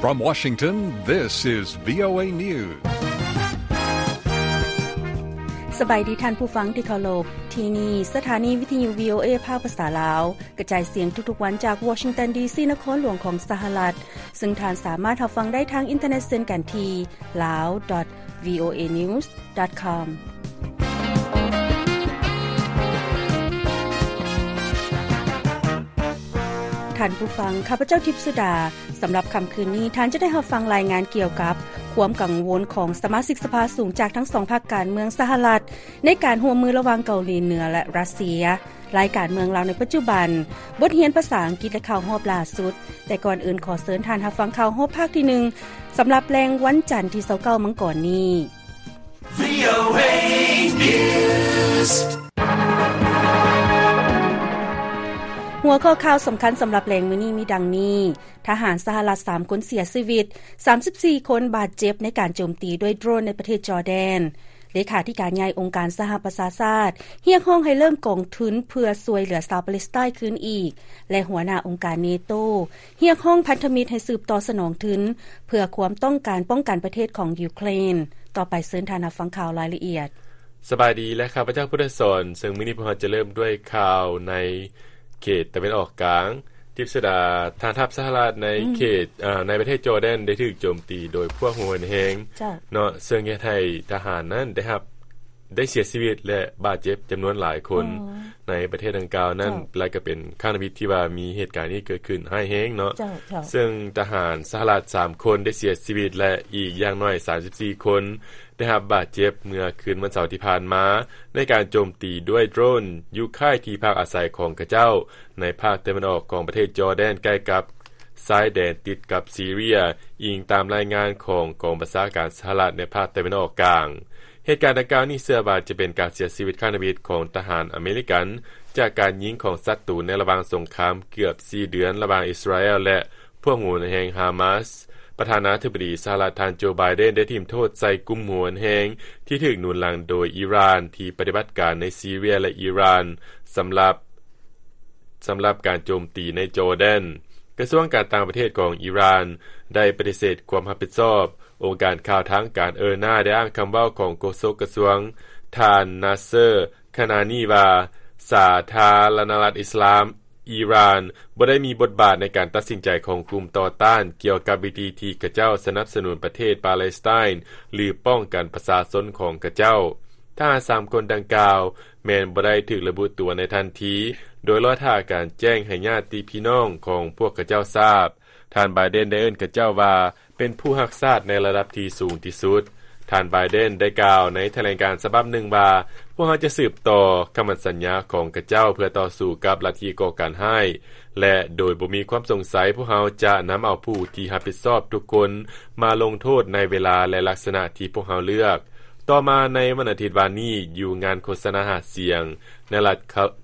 From Washington, this is VOA News. ສະບາຍດີທ່ານຜູ້ຟັງທີ່ເຄົາລົບ, ທີ່ນີ້ສະຖານີວິທະຍຸ VOA ພາກພາສາລາວ ກະຈາຍສຽງທຸກໆວັນຈາກ Washington ດີ ຊີ ນະຄອນຫຼວງຂອງສະຫະລັດ, ເຊິ່ງທ່ານສາມາດຮັບຟັງໄດ້ທາງອິນເຕີເນັດເຊັ່ນກັນທີ່ lao dot voanews dot com. ທ່ານຜູ້ຟັງ, ຂ້າພະເຈົ້າ ທິບສຸດາ. ສຳລັບຄ່ຳຄືນນີ້, ທ່ານຈະໄດ້ຮັບຟັງລາຍງານກ່ຽວກັບຄວາມກັງວົນຂອງສະມາຊິກສະພາສູງຈາກທັງສອງພັກການເມືອງສະຫະລັດ ໃນການຮ່ວມມືລະຫວ່າງເກົາຫຼີເໜືອ ແລະ ຣັດເຊຍ, ລາຍການເມືອງລາວໃນປັດຈຸບັນ, ບົດຮຽນພາສາອັງກິດ ແລະ ຂ່າວຮອບລ່າສຸດ. ແຕ່ກ່ອນອື່ນ, ຂໍເຊີນທ່ານຮັບຟັງຂ່າວຮອບພາກທີໜຶ່ງ ສຳລັບແລງວັນຈັນທີຊາວເກົ້າມັງກອນນີ້. VOA News. ຫົວຂໍ້ຂ່າວສຳຄັນສຳລັບແລງມື້ນີ້ມີດັ່ງນີ້: ທະຫານສະຫະລັດສາມຄົນເສຍຊີວິດ, ສາມສິບສີ່ຄົນບາດເຈັບໃນການໂຈມຕີດ້ວຍໂດຣນໃນປະເທດຈໍແດນ. ເລຂາທິການໃຫຍ່ອົງການສະຫະປະຊາຊາດ ຮຽກຮ້ອງໃຫ້ເລີ່ມກອງທຶນເພື່ອຊ່ວຍເຫຼືອຊາວປາເລສໄຕນ໌ຄືນອີກ ແລະ ຫົວໜ້າອົງການເນໂຕ ຮຽກຮ້ອງພັນທະມິດໃຫ້ສືບຕໍ່ສະໜອງທຶນ ເພື່ອຄວາມຕ້ອງການປ້ອງກັນປະເທດຂອງຢູເຄຣນ. ຕໍ່ໄປເຊີນທ່ານຮັບຟັງຂ່າວລາຍລະອຽດ. ສະບາຍດີ ແລະ ຂ້າພະເຈົ້າ ພຸດທະສອນ, ເຊິ່ງມື້ນີ້ພວກເຮົາຈະເລີ່ມດ້ວຍຂ່າວໃນເຂດຕາເວັນອອກກາງ. ທິບສຸດາ, ທະຫານທັບສະຫະລັດໃນເຂດ ອືມ ເອີ ໃນປະເທດຈໍແດນໄດ້ຖືກໂຈມຕີໂດຍພວກຫົວຮຸນແຮງ ເຈົ້າ ເນາະ, ເຊິ່ງເຮັດໃຫ້ທະຫານນັ້ນໄດ້ຮັບ ໄດ້ເສຍຊີວິດ ແລະ ບາດເຈັບຈຳນວນຫຼາຍຄົນ ໃນປະເທດດັ່ງກ່າວນັ້ນ ເຈົ້າ ແລະ ກໍເປັນຄັ້ງທຳອິດທີ່ວ່າມີເຫດການນີ້ເກີດຂຶ້ນຮ້າຍແຮງເນາະ. ເຈົ້າ ເຈົ້າ ເຊິ່ງທະຫານສະຫະລັດສາມຄົນໄດ້ເສຍຊີວິດ ແລະ ອີກຢ່າງໜ້ອຍສາມສິບສີ່ຄົນໄດ້ຮັບບາດເຈັບ ເມື່ອຄືນວັນເສົາທີ່ຜ່ານມາ ໃນການໂຈມຕີດ້ວຍໂດຣນຢູ່ຄ້າຍທີ່ພັກອາໄສຂອງເຂົາເຈົ້າ ໃນພາກຕາເວັນອອກຂອງປະເທດຈໍແດນ ໃກ້ກັບຊາຍແດນຕິດກັບຊີເຣຍ, ອີງຕາມລາຍງານຂອງກອງບັນຊາການສະຫະລັດໃນພາກຕາເວັນອອກກາງ. ເຫດການດັ່ງກ່າວນີ້ເຊື່ອວ່າຈະເປັນການເສຍຊີວິດຄັ້ງທຳອິດຂອງທະຫານອາເມລິກັນ ຈາກການຍິງຂອງສັດຕູໃນລະຫວ່າງສົງຄາມເກືອບສີ່ເດືອນລະຫວ່າງອິດສະຣາແອລ ແລະ ພວກຫົວຮຸນແຮງຮາມາສ. ປະທານາທິບໍດີສະຫະລັດ ທ່ານ ໂຈ ໄບເດັນ ໄດ້ຖິ້ມໂທດໃສ່ກຸ່ມຫົວຮຸນແຮງທີ່ຖືກໜູນຫຼັງໂດຍອີຣານ ທີ່ປະຕິບັດການໃນຊີເຣຍ ແລະ ອີຣານ ສຳລັບ ສຳລັບການໂຈມຕີໃນຈໍແດນ. ກະຊວງການຕ່າງປະເທດຂອງອີຣານໄດ້ປະຕິເສດຄວາມຮັບຜິດຊອບ. ອົງການຂ່າວທາງການເອີນາ ໄດ້ອ້າງຄຳເວົ້າຂອງໂຄສົກກະຊວງ ທ່ານ ນາເຊີ ຄານານີ ວ່າ ສາທາລະນະລັດອິດສະລາມ ອີຣານບໍ່ໄດ້ມີບົດບາດໃນການຕັດສິນໃຈຂອງກຸ່ມຕໍ່ຕ້ານກ່ຽວກັບວິທີທີ່ຂະເຈົ້າສະໜັບສະໜູນປະເທດປາເລສໄຕນ໌ ຫຼື ປ້ອງກັນປະຊາຊົນຂອງຂະເຈົ້າ. ທະຫານສາມຄົນດັ່ງກ່າວແມ່ນບໍ່ໄດ້ຖືກລະບຸຕົວໃນທັນທີ ໂດຍລໍຖ້າການແຈ້ງໃຫ້ຍາດຕິພີ່ນ້ອງຂອງພວກຂະເຈົ້າຊາບ. ທ່ານ ໄບເດັນ ໄດ້ເອີ້ນຂະເຈົ້າວ່າ ເປັນຜູ້ຮັກຊາດໃນລະດັບທີ່ສູງທີ່ສຸດ. ທ່ານ ໄບເດັນ ໄດ້ກ່າວໃນຖະແຫຼງການສະບັບໜຶ່ງວ່າ, ພວກເຮົາຈະສືບຕໍ່ຄຳໝັ້ນສັນຍາຂອງຂະເຈົ້າເພື່ອຕໍ່ສູ້ກັບລັດທິກໍ່ການຮ້າຍ ແລະ ໂດຍບໍ່ມີຄວາມສົງໄສ, ພວກເຮົາຈະນຳເອົາຜູ້ທີ່ຮັບຜິດຊອບທຸກຄົນມາລົງໂທດໃນເວລາ ແລະ ລັກສະນະທີ່ພວກເຮົາເລືອກ. ຕໍ່ມາໃນວັນອາທິດວານນີ້, ຢູ່ງານໂຄສະນາຫາສຽງໃນລັດ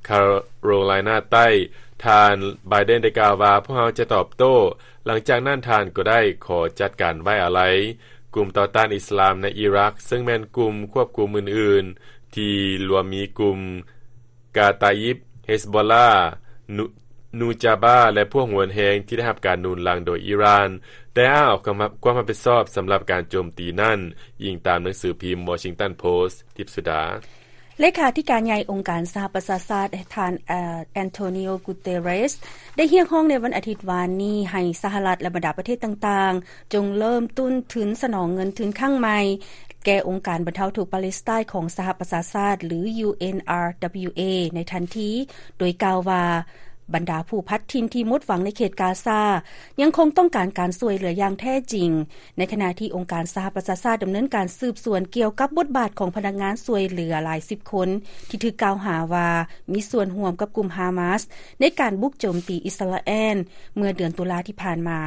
ຄາໂຣໄລນາໃຕ້, ທ່ານ ໄບເດັນ ໄດ້ກ່າວວ່າ, ພວກເຮົາຈະຕອບໂຕ້. ຫຼັງຈາກນັ້ນທ່ານກໍໄດ້ຂໍຈັດການໄວ້ອາໄລກຸ່ມຕໍ່ຕ້ານອິດສະລາມໃນອີຣັກ, ເຊິ່ງແມ່ນກຸ່ມຄວບຄຸມອື່ນໆ ທີ່ລວມມີກຸ່ມກາຕາອິບ, ເຮສໂບລາ, ນູ ນູຈາບາ ແລະ ພວກຫົວແຮງທີ່ໄດ້ຮັບການໜູນຫຼັງໂດຍອີຣານ ໄດ້ອ້າງອອກຄຳ ຄວາມຮັບຜິດຊອບສຳລັບການໂຈມຕີນັ້ນ, ອີງຕາມໜັງສືພິມ Washington Post. ທິບສຸດາ. ເລຂາທິການໃຫຍ່ອົງການສະຫະປະຊາຊາດ ທ່ານ ແອນໂທນີໂອ ກູເຕເຣສ ໄດ້ຮຽກຮ້ອງໃນວັນອາທິດວານນີ້ໃຫ້ສະຫະລັດ ແລະ ບັນດາປະເທດຕ່າງໆ ຈົ່ງເລີ່ມຕົ້ນທຶນສະໜອງເງິນທຶນຄັ້ງໃໝ່ແກ່ອົງການບັນເທົາທຸກປາເລສໄຕນ໌ຂອງສະຫະປະຊາຊາດ ຫຼື UNRWA ໃນທັນທີ, ໂດຍກ່າວວ່າ ບັນດາຜູ້ພັດຖິ່ນທີ່ໝົດຫວັງໃນເຂດກາຊາ ຍັງຄົງຕ້ອງການການຊ່ວຍເຫຼືອຢ່າງແທ້ຈິງ, ໃນຂະນະທີ່ອົງການສະຫະປະຊາຊາດດຳເນີນການສືບສວນກ່ຽວກັບບົດບາດຂອງພະນັກງານຊ່ວຍເຫຼືອຫຼາຍສິບຄົນ ທີ່ຖືກກ່າວຫາວ່າມີສ່ວນຮ່ວມກັບກຸ່ມຮາມາສໃນການບຸກໂຈມຕີອິດສະຣາແອນເມື່ອເດືອນຕຸລາທີ່ຜ່ານມາ.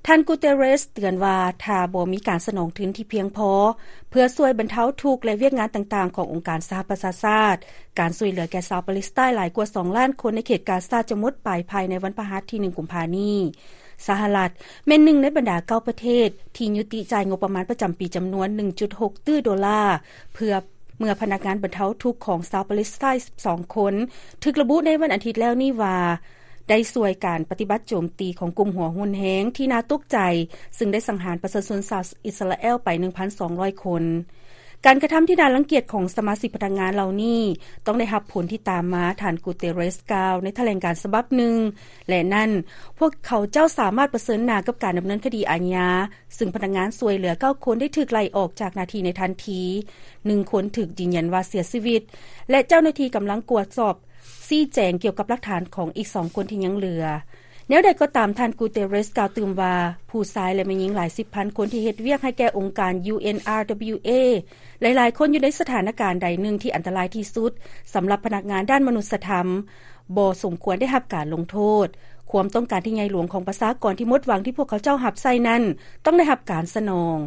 ທ່ານ ກູເຕເຣສ ເຕືອນວ່າ ຖ້າບໍ່ມີການສະໜອງທຶນທີ່ພຽງພໍເພື່ອຊ່ວຍບັນເທົາທຸກ ແລະ ວຽກງານຕ່າງໆຂອງອົງການສະຫະປະຊາຊາດ, ການຊ່ວຍເຫຼືອແກ່ຊາວປາເລສໄຕນ໌ຫຼາຍກວ່າສອງລ້ານຄົນໃນເຂດກາຊາຈະໝົດໄປພາຍໃນວັນພະຫັດທີໜຶ່ງ ກຸມພານີ້. ສະຫະລັດແມ່ນໜຶ່ງໃນບັນດາເກົ້າປະເທດທີ່ຍຸຕິຈ່າຍງົບປະມານປະຈຳປີຈຳນວນໜຶ່ງຈຸດຫົກຕື້ໂດລາ ເພື່ອ ເມື່ອພະນັກງານບັນເທົາທຸກຂອງຊາວປາເລສໄຕນ໌ສິບສອງຄົນ ຖືກລະບຸໃນວັນອາທິດແລ້ວນີ້ວ່າ ໄດ້ຊ່ວຍການປະຕິບັດໂຈມຕີຂອງກຸ່ມຫົວຮຸນແຮງທີ່ໜ້າຕົກໃຈ, ຊຶ່ງໄດ້ສັງຫານປະຊາຊົນຊາວອິດສະຣາແອລໄປ ໜຶ່ງພັນສອງຮ້ອຍຄົນ. ການກະທຳທີ່ໜ້າລັງກຽດຂອງສະມາຊິກພະນັກງານເຫຼົ່ານີ້ ຕ້ອງໄດ້ຮັບຜົນທີ່ຕາມມາ, ທ່ານ Guterres ກ່າວໃນຖະແຫຼງການສະບັບໜຶ່ງ, ແລະ ນັ້ນ, ພວກເຂົາເຈົ້າສາມາດປະເຊີນໜ້າກັບການດຳເນີນຄະດີອາຍາ, ຊຶ່ງພະນັກງານຊ່ວຍເຫຼືອເກົ້າຄົນໄດ້ຖືກໄລ່ອອກຈາກໜ້າທີ່ໃນທັນທີ, ໜຶ່ງຄົນຖືກຢືນຢັນວ່າເສຍຊີວິດ ແລະ ເຈົ້າໜ້າທີ່ກຳລັງກວດສອບ ຊີ້ແຈງກ່ຽວກັບຫຼັກຖານຂອງອີກສອງຄົນທີ່ຍັງເຫຼືອ. ແນວໃດກໍຕາມ, ທ່ານ Guterres ກ່າວຕື່ມວ່າ, ຜູ້ຊາຍ ແລະ ແມ່ຍິງຫຼາຍສິບພັນຄົນທີ່ເຮັດວຽກໃຫ້ແກ່ອົງການ UNRWA ຫຼາຍໆຄົນຢູ່ໃນສະຖານະການໃດໜຶ່ງທີ່ອັນຕະລາຍທີ່ສຸດສຳລັບພະນັກງານດ້ານມະນຸດສະທຳ ບໍ່ສົມຄວນໄດ້ຮັບການລົງໂທດ. ຄວາມຕ້ອງການທີ່ໃຫຍ່ຫຼວງຂອງປະຊາກອນທີ່ໝົດຫວັງທີ່ພວກເຂົາເຈົ້າຮັບໃຊ້ນັ້ນ ຕ້ອງໄດ້ຮັບການສະໜອງ.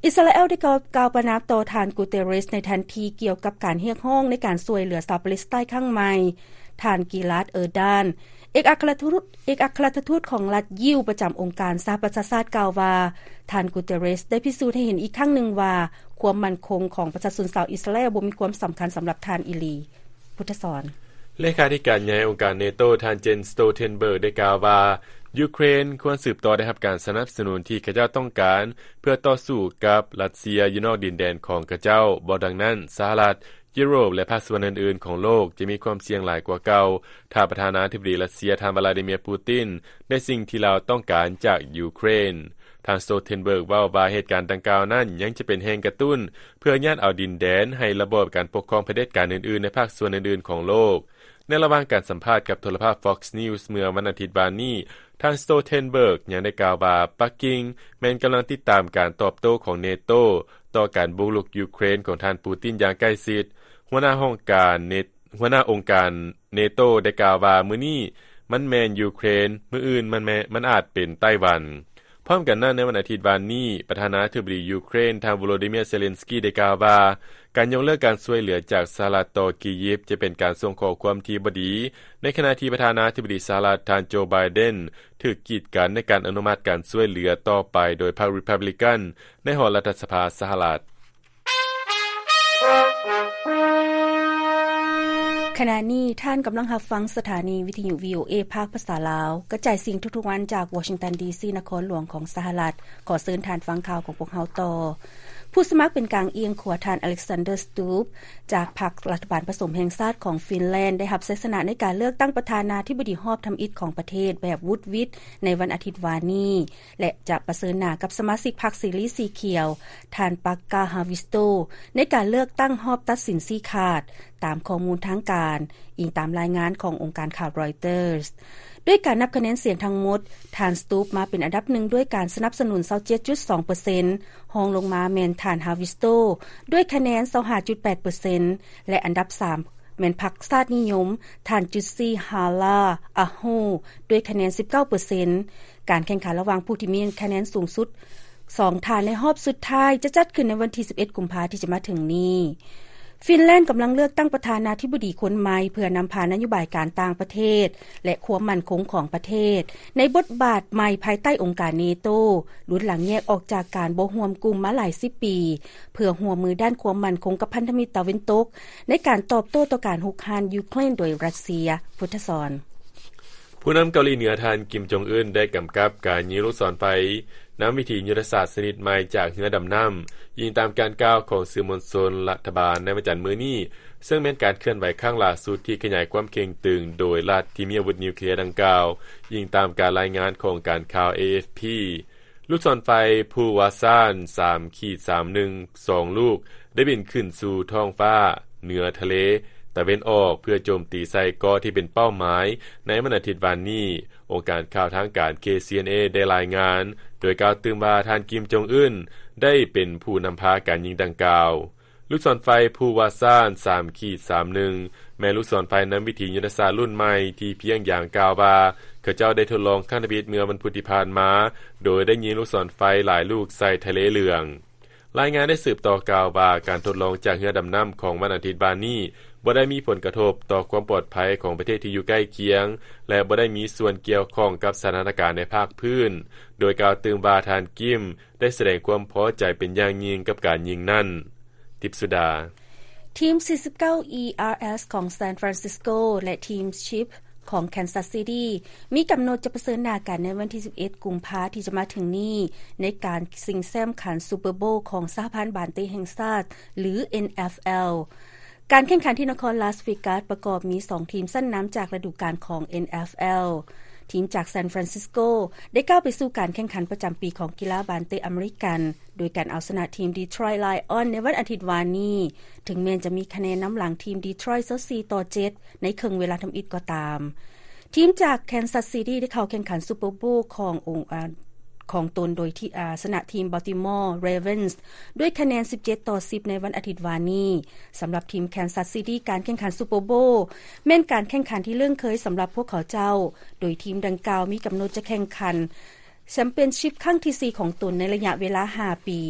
ອິດສະຣາແອລໄດ້ກ່າວປະນາມຕໍ່ທ່ານ Guterres ໃນທັນທີກ່ຽວກັບການຮຽກຮ້ອງໃນການຊ່ວຍເຫຼືອຊາວປາເລສໄຕນຄັ້ງໃໝ່. ທ່ານ Gilad Erdan ເອກອັກຄະລັດທູດ ເອກອັກຄະລັດທູດຂອງລັດຢິວປະຈຳອົງການສະຫະປະຊາຊາດກ່າວວ່າ, ທ່ານ Guterres ໄດ້ພິສູດໃຫ້ເຫັນອີກຄັ້ງໜຶ່ງວ່າ ຄວາມໝັ້ນຄົງຂອງປະຊາຊົນຊາວອິດສະຣາແອລບໍ່ມີຄວາມສຳຄັນສຳລັບທ່ານອີ່ຫຼີ. ພຸດທະສອນ. ເລຂາທິການໃຫຍ່ອົງການເນໂຕ ທ່ານ Jens Stoltenberg ໄດ້ກ່າວວ່າ, ຢູເຄຣນຄວນສືບຕໍ່ໄດ້ຮັບການສະໜັບສະໜູນທີ່ເຂົາເຈົ້າຕ້ອງການ ເພື່ອຕໍ່ສູ້ກັບຣັດເຊຍຢູ່ນອກດິນແດນຂອງເຂົາເຈົ້າ. ບໍ່ດັ່ງນັ້ນ, ສະຫະລັດ, ຢູໂຣບ ແລະ ພາກສ່ວນອື່ນໆຂອງໂລກຈະມີຄວາມສ່ຽງຫຼາຍກວ່າເກົ່າ ຖ້າປະທານາທິບໍດີຣັດເຊຍ ທ່ານ Vladimir Putin ໄດ້ສິ່ງທີ່ລາວຕ້ອງການຈາກຢູເຄຣນ. ທ່ານ Stoltenberg ເວົ້າວ່າເຫດການດັ່ງກ່າວນັ້ນຍັງຈະເປັນແຮງກະຕຸ້ນເພື່ອຍາດເອົາດິນແດນໃຫ້ລະບອບການປົກຄອງຜະເດັດການອື່ນໆໃນພາກສ່ວນອື່ນໆຂອງໂລກ. ໃນລະຫວ່າງການສຳພາດກັບໂທລະພາບ Fox News ເມື່ອວັນອາທິດວານນີ້, ທ່ານ Stoltenberg ຍັງໄດ້ກ່າວວ່າ ປັກກິ່ງແມ່ນກຳລັງຕິດຕາມການຕອບໂຕ້ຂອງເນໂຕຕໍ່ການບຸກລຸກຢູເຄຣນຂອງທ່ານ Putin ຢ່າງໃກ້ຊິດ. ຫົວໜ້າຫ້ອງການເນ ຫົວໜ້າອົງການເນໂຕໄດ້ກ່າວວ່າ, ມື້ນີ້ມັນແມ່ນຢູເຄຣນ, ມື້ອື່ນມັນແມ່ນ, ມັນອາດເປັນໄຕ້ຫວັນ. ພ້ອມກັນນັ້ນ, ໃນວັນອາທິດວານນີ້, ປະທານາທິບໍດີຢູເຄຣນ ທ່ານ Volodymyr Zelensky ໄດ້ກ່າວວ່າ ການຍົກເລີກການຊ່ວຍເຫຼືອຈາກສະຫະລັດຕໍ່ກີຢິບ ຈະເປັນການສົ່ງຂໍ້ຄວາມທີ່ບໍ່ດີ, ໃນຂະນະທີ່ປະທານາທິບໍດີສະຫະລັດ ທ່ານ Joe Biden ຖືກກີດກັນໃນການອະນຸມັດການຊ່ວຍເຫຼືອຕໍ່ໄປໂດຍພັກ Republican ໃນຫໍລັດຖະສະພາສະຫະລັດ. ຂະນະນີ້ທ່ານກຳລັງຮັບຟັງສະຖານີວິທະຍຸ VOA ພາກພາສາລາວ ກະຈາຍສຽງທຸກໆວັນຈາກ Washington ດີ ຊີ ນະຄອນຫຼວງຂອງສະຫະລັດ. ຂໍເຊີນທ່ານຟັງຂ່າວຂອງພວກເຮົາຕໍ່. ຜູ້ສະໝັກເປັນກາງອຽງຂວາ ທ່ານ Alexander Stubb ຈາກພັກລັດຖະບານປະສົມແຫ່ງຊາດຂອງຟິນແລນ ໄດ້ຮັບໄຊຊະນະໃນການເລືອກຕັ້ງປະທານາທິບໍດີຮອບທຳອິດຂອງປະເທດແບບວຸດວິດໃນວັນອາທິດວານນີ້ ແລະ ຈະປະເຊີນໜ້າກັບສະມາຊິກພັກເສລີສີຂຽວ ທ່ານ Pekka Haavisto ໃນການເລືອກຕັ້ງຮອບຕັດສິນຊີ້ຂາດ, ຕາມຂໍ້ມູນທາງການ, ອີງຕາມລາຍງານຂອງອົງການຂ່າວ Reuters. ດ້ວຍການນັບຄະແນນສຽງທັງໝົດ, ທ່ານ Stubb ມາເປັນອັນດັບໜຶ່ງດ້ວຍການສະໜັບສະໜູນ ຊາວເຈັດຈຸດສອງເປີເຊັນ, ຮອງລົງມາແມ່ນທ່ານ Haavisto ດ້ວຍຄະແນນ ຊາວຫ້າຈຸດແປດເປີເຊັນ ແລະ ອັນດັບສາມ ແມ່ນພັກຊາດນິຍົມ ທ່ານ Jussi Halla-aho ດ້ວຍຄະແນນ ສິບເກົ້າເປີເຊັນ. ການແຂ່ງຂັນລະຫວ່າງຜູ້ທີ່ມີຄະແນນສູງສຸດສອງທ່ານໃນຮອບສຸດທ້າຍ ຈະຈັດຂຶ້ນໃນວັນທີ ສິບເອັດ ກຸມພາ ທີ່ຈະມາເຖິງນີ້. ຟິນແລນກຳລັງເລືອກຕັ້ງປະທານາທິບໍດີຄົນໃໝ່ ເພື່ອນຳພານະໂຍບາຍການຕ່າງປະເທດ ແລະ ຄວາມໝັ້ນຄົງຂອງປະເທດ ໃນບົດບາດໃໝ່ພາຍໃຕ້ອົງການເນໂຕ ລຸນຫຼັງແຍກອອກຈາກການບໍ່ຮ່ວມກຸ່ມມາຫຼາຍສິບປີ ເພື່ອຮ່ວມມືດ້ານຄວາມໝັ້ນຄົງກັບພັນທະມິດຕາເວັນຕົກ ໃນການຕອບໂຕ້ຕໍ່ການຮຸກຮານຢູເຄຣນໂດຍຣັດເຊຍ. ພຸດທະສອນ. ຜູ້ນຳເກົາຫຼີເໜືອ ທ່ານ ກິມ ຈົງອຶນ ໄດ້ກຳກັບການຍິງລູກສອນໄຟນຳວິທີຍຸດທະສາດຊະນິດໃໝ່ຈາກເຮືອດຳນ້ຳ, ອີງຕາມການກ່າວຂອງສື່ມວນຊົນລັດຖະບານໃນວັນຈັນມື້ນີ້, ເຊິ່ງແມ່ນການເຄື່ອນໄຫວຄັ້ງຫຼ້າສຸດທີ່ຂະຫຍາຍຄວາມເຄັ່ງຕຶງໂດຍລັດທີ່ມີອາວຸດນິວເຄລຍດັ່ງກ່າວ, ອີງຕາມການລາຍງານຂອງການຂ່າວ ເອເອັຟພີ. ລູກສອນໄຟພູວາຊານ ສາມຂີດສາມໜຶ່ງ ສອງລູກ ໄດ້ບິນຂຶ້ນສູ່ທ້ອງຟ້າເໜືອທະເລຕາເວັນອອກ ເພື່ອໂຈມຕີໃສ່ເກາະທີ່ເປັນເປົ້າໝາຍໃນວັນອາທິດວານນີ້. ອົງການຂ່າວທາງການ ເຄຊີເອັນເອ ໄດ້ລາຍງານ ໂດຍກ່າວຕື່ມວ່າ ທ່ານ ກິມ ຈົງອຶນ ໄດ້ເປັນຜູ້ນຳພາການຍິງດັ່ງກ່າວ. ລູກສອນໄຟພູວາຊານ ສາມຂີດສາມໜຶ່ງ ແມ່ນລູກສອນໄຟນຳວິທີຍຸດທະສາດລຸ້ນໃໝ່ ທີ່ພຽງຢາງກ່າວວ່າ ເຂົາເຈົ້າໄດ້ທົດລອງຄັ້ງທຳອິດເມື່ອວັນພຸດທີ່ຜ່ານມາ, ໂດຍໄດ້ຍິງລູກສອນໄຟຫຼາຍລູກໃສ່ທະເລເຫຼືອງ. ລາຍງານໄດ້ສືບຕໍ່ກ່າວວ່າ ການທົດລອງຈາກເຮືອດຳນ້ຳຂອງວັນອາທິດວານນີ້ ບໍ່ໄດ້ມີຜົນກະທົບຕໍ່ຄວາມປອດໄພຂອງປະເທດທີ່ຢູ່ໃກ້ຄຽງ ແລະ ບໍ່ໄດ້ມີສ່ວນກ່ຽວຂ້ອງກັບສະຖານະການໃນພາກພື້ນ, ໂດຍກ່າວຕື່ມວ່າ ທ່ານ ກິມ ໄດ້ສະແດງຄວາມພໍໃຈເປັນຢ່າງຍິ່ງກັບການຍິງນັ້ນ. ທິບສຸດາ. ທີມ ສີ່ສິບເກົ້າ ERS ຂອງ San Francisco ແລະ ທີມ Chip ຂອງແຄນຊັສຊິຕີ້ ມີກຳນົດຈະປະເຊີນໜ້າກັນໃນວັນທີສິບເອັດ ກຸມພາ ທີ່ຈະມາເຖິງນີ້ ໃນການຊິງແຊ້ມຂັນຊຸບເປີໂບວຂອງສະຫະພັນບານເຕະແຫ່ງຊາດ ຫຼື ເອັນເອັຟແອລ. ການແຂ່ງຂັນທີ່ນະຄອນລາສເວກັສປະກອບມີສອງທີມຊັ້ນນຳຈາກລະດູການຂອງ ເອັນເອັຟແອລ. ທີມຈາກຊານຟຣານຊິສໂກ ໄດ້ກ້າວໄປສູ່ການແຂ່ງຂັນປະຈຳປີຂອງກິລາບານເຕະອາເມລິກັນ ໂດຍການເອົາຊະນະທີມດີທຣອຍໄລອອນໃນວັນອາທິດວານນີ້, ເຖິງແມ່ນຈະມີຄະແນນນຳຫຼັງທີມດີທຣອຍຊາວສີ່ຕໍ່ເຈັດ ໃນເຄິ່ງເວລາທຳອິດກໍຕາມ. ທີມຈາກແຄນຊັສຊິຕີ້ໄດ້ເຂົ້າແຂ່ງຂັນຊຸບເປີໂບວຂອງອົງ ອາ ຂອງຕົນໂດຍທີ່ ອາ ຊະນະທີມບອລຕິມໍເຣເວັນສ໌ດ້ວຍຄະແນນສິບເຈັດຕໍ່ສິບໃນວັນອາທິດວານນີ້. ສຳລັບທີມແຄນຊັສຊິຕີ້ ການແຂ່ງຂັນຊຸບເປີໂບວແມ່ນການແຂ່ງຂັນທີ່ເລື່ອນເຄີຍສຳລັບພວກເຂົາເຈົ້າ, ໂດຍທີມດັ່ງກ່າວມີກຳນົດຈະແຂ່ງຂັນ ແຊມປຽນຊິບຄັ້ງທີສີ່ຂອງຕົນໃນໄລຍະເວລາຫ້າປີ.